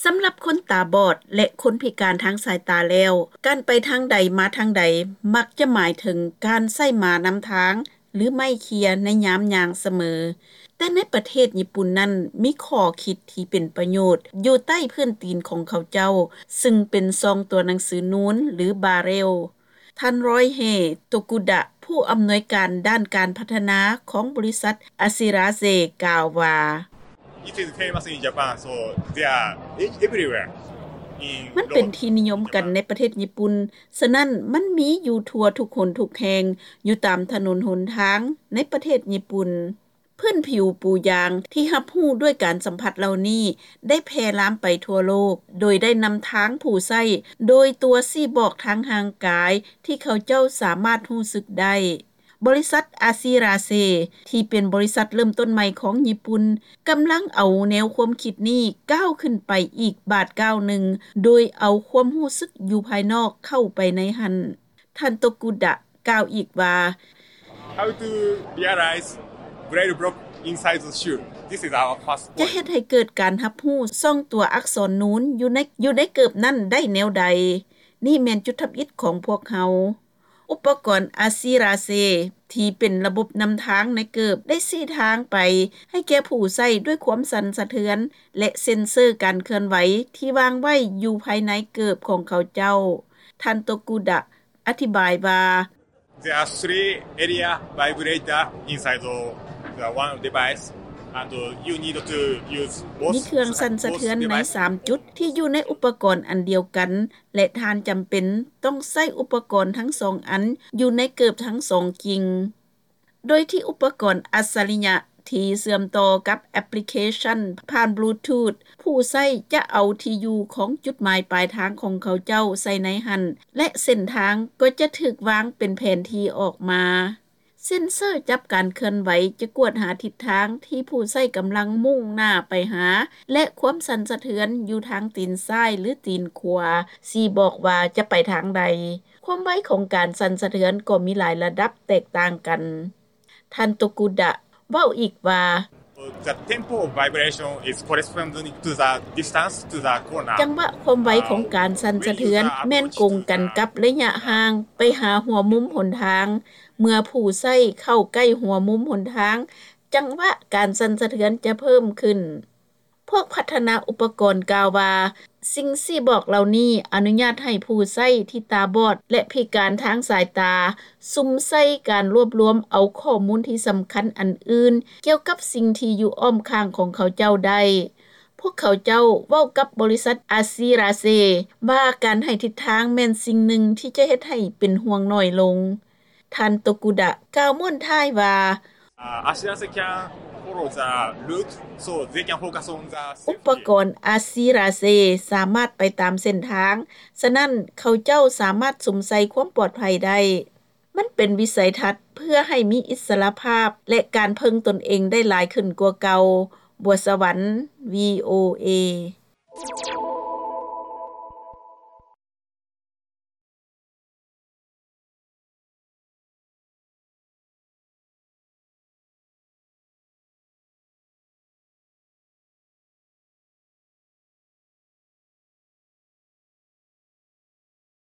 ສຳລັບຄົນຕາບອດ ແລະ ຄົນພິການທາງສາຍຕາແລ້ວ, ການໄປທາງໃດມາທາງໃດ ມັກຈະໝາຍເຖິງການໃຊ້ມ້ານຳທາງ ຫຼື ໄມ້ເຂ່ຍໃນຍາມຍ່າງສະເໝີ. ແຕ່ໃນປະເທດຍີ່ປຸ່ນນັ້ນ ມີຂໍ້ຄິດທີ່ເປັນປະໂຫຍດຢູ່ໃຕ້ພື້ນຕີນຂອງເຂົາເຈົ້າ, ຊຶ່ງເປັນຊ່ອງຕົວໜັງສືນູນ ຫຼື ບາເຣວ. ທ່ານ ຣອຍເຮ ໂຕກຸດະ ຜູ້ອຳນວຍການດ້ານການພັດທະນາຂອງບໍລິສັດອາຊີຣາເຊ ກ່າວວ່າ: It is famous in Japan, so they are e-, everywhere. In ມັນເປັນທີ່ນິຍົມກັນໃນປະເທດຍີ່ປຸ່ນ, ສະນັ້ນມັນມີຢູ່ທົ່ວທຸກຫົນທຸກແຫ່ງ, ຢູ່ຕາມຖະໜົນຫົນທາງໃນປະເທດຍີ່ປຸ່ນ. ພື້ນຜິວປູຢາງທີ່ຮັບຮູ້ດ້ວຍການສຳຜັດເຫຼົ່ານີ້ ໄດ້ແຜ່ລາມໄປທົ່ວໂລກ, ໂດຍໄດ້ນຳທາງຜູ້ໃຊ້ໂດຍຕົວຊີ້ບອກທາງຮ່າງກາຍທີ່ເຂົາເຈົ້າສາມາດຮູ້ສຶກໄດ້. ບໍລິສັດອາຊີຣາເຊ ທີ່ເປັນບໍລິສັດເລີ່ມຕົ້ນໃໝ່ຂອງຍີ່ປຸ່ນ, ກຳລັງເອົາແນວຄວາມຄິດນີ້ກ້າວຂຶ້ນໄປອີກບາດກ້າວໜຶ່ງ, ໂດຍເອົາຄວາມຮູ້ສຶກຢູ່ພາຍນອກເຂົ້າໄປໃນຫັ້ນ. ທ່ານ ໂຕກຸດະ ກ່າວອີກວ່າ: How to realize braille block inside the shoe? This is our first point. ຈະເຮັດໃຫ້ເກີດການຮັບຮູ້ຊ່ອງຕົວອັກສອນນູນຢູ່ໃນ, ຢູ່ໃນເກີບນັ້ນໄດ້ແນວໃດ? ນີ້ແມ່ນຈຸດທຳອິດຂອງພວກເຮົາ. ອຸປະກອນອາຊີຣາເຊ ທີ່ເປັນລະບົບນຳທາງໃນເກີບ ໄດ້ຊີ້ທາງໄປໃຫ້ແກ່ຜູ້ໃຊ້ດ້ວຍຄວາມສັ່ນສະເທືອນ ແລະ ເຊັນເຊີການເຄື່ອນໄຫວທີ່ວາງໄວ້ຢູ່ພາຍໃນເກີບຂອງເຂົາເຈົ້າ. ທ່ານ ໂຕກຸດະ ອະທິບາຍວ່າ: There are three area vibrator inside the, the one device, and you need to use both. ມີເຄື່ອງສັ່ນສະເທືອນໃນສາມຈຸດທີ່ຢູ່ໃນອຸປະກອນອັນດຽວກັນ ແລະ ທ່ານຈຳເປັນຕ້ອງໃຊ້ອຸປະກອນທັງສອງອັນຢູ່ໃນເກີບທັງສອງກິ່ງ. ໂດຍທີ່ອຸປະກອນອັດສະລິຍະທີ່ເຊື່ອມຕໍ່ກັບແອັບພລິເຄຊັນຜ່ານບລູທູດ, ຜູ້ໃຊ້ຈະເອົາທີ່ຢູ່ຂອງຈຸດໝາຍປາຍທາງຂອງເຂົາເຈົ້າໃສ່ໃນຫັ້ນ ແລະ ເສັ້ນທາງກໍຈະຖືກວາງເປັນແຜນທີ່ອອກມາ. ເຊັນເຊີຈັບການເຄື່ອນໄຫວຈະກວດຫາທິດທາງທີ່ຜູ້ໃຊ້ກຳລັງມຸ່ງໜ້າໄປຫາ ແລະ ຄວາມສັ່ນສະເທືອນຢູ່ທາງຕີນຊ້າຍ ຫຼື ຕີນຂວາ ຊີ້ບອກວ່າຈະໄປທາງໃດ. ຄວາມໄວຂອງການສັ່ນສະເທືອນກໍມີຫຼາຍລະດັບແຕກຕ່າງກັນ. ທ່ານ ໂຕກຸດະ ເວົ້າອີກວ່າ: The tempo of vibration is corresponding to the distance to the corner. ຈັງຫວະຄວາມໄວຂອງການສັ່ນສະເທືອນແມ່ນກົງກັນກັບໄລຍະຫ່າງໄປຫາຫົວມຸມຫົນທາງ. ເມື່ອຜູ້ໃຊ້ເຂົ້າໃກ້ຫົວມຸມຫົນທາງ, ຈັງຫວະການສັ່ນສະເທືອນຈະເພີ່ມຂຶ້ນ. ພວກພັດທະນາອຸປະກອນກ່າວວ່າ, ສິ່ງຊີ້ບອກເຫຼົ່ານີ້ອະນຸຍາດໃຫ້ຜູ້ໃຊ້ທີ່ຕາບອດ ແລະ ພິການທາງສາຍຕາ ສຸມໃສ່ການລວບລວມເອົາຂໍ້ມູນທີ່ສຳຄັນອັນອື່ນກ່ຽວກັບສິ່ງທີ່ຢູ່ອ້ອມຂ້າງຂອງເຂົາເຈົ້າໄດ້. ພວກເຂົາເຈົ້າເວົ້າກັບບໍລິສັດອາຊີຣາເຊວ່າ ການໃຫ້ທິດທາງແມ່ນສິ່ງໜຶ່ງທີ່ຈະເຮັດໃຫ້ເປັນຫ່ວງໜ້ອຍລົງ. ທ່ານ ໂຕກຸດະ ກ່າວມ້ວນທ້າຍວ່າ: Uh, Ashirase can follow the route, so they can focus on the safety. ອຸປະກອນອາຊີຣາເຊສາມາດໄປຕາມເສັ້ນທາງ, ສະນັ້ນເຂົາເຈົ້າສາມາດສຸມໃສ່ຄວາມປອດໄພໄດ້. ມັນເປັນວິໄສທັດເພື່ອໃຫ້ມີອິດສະຫຼະພາບ ແລະ ການເພິ່ງຕົນເອງໄດ້ຫຼາຍຂຶ້ນກວ່າເກົ່າ. ບົວສະຫວັນ ວີໂອເອ.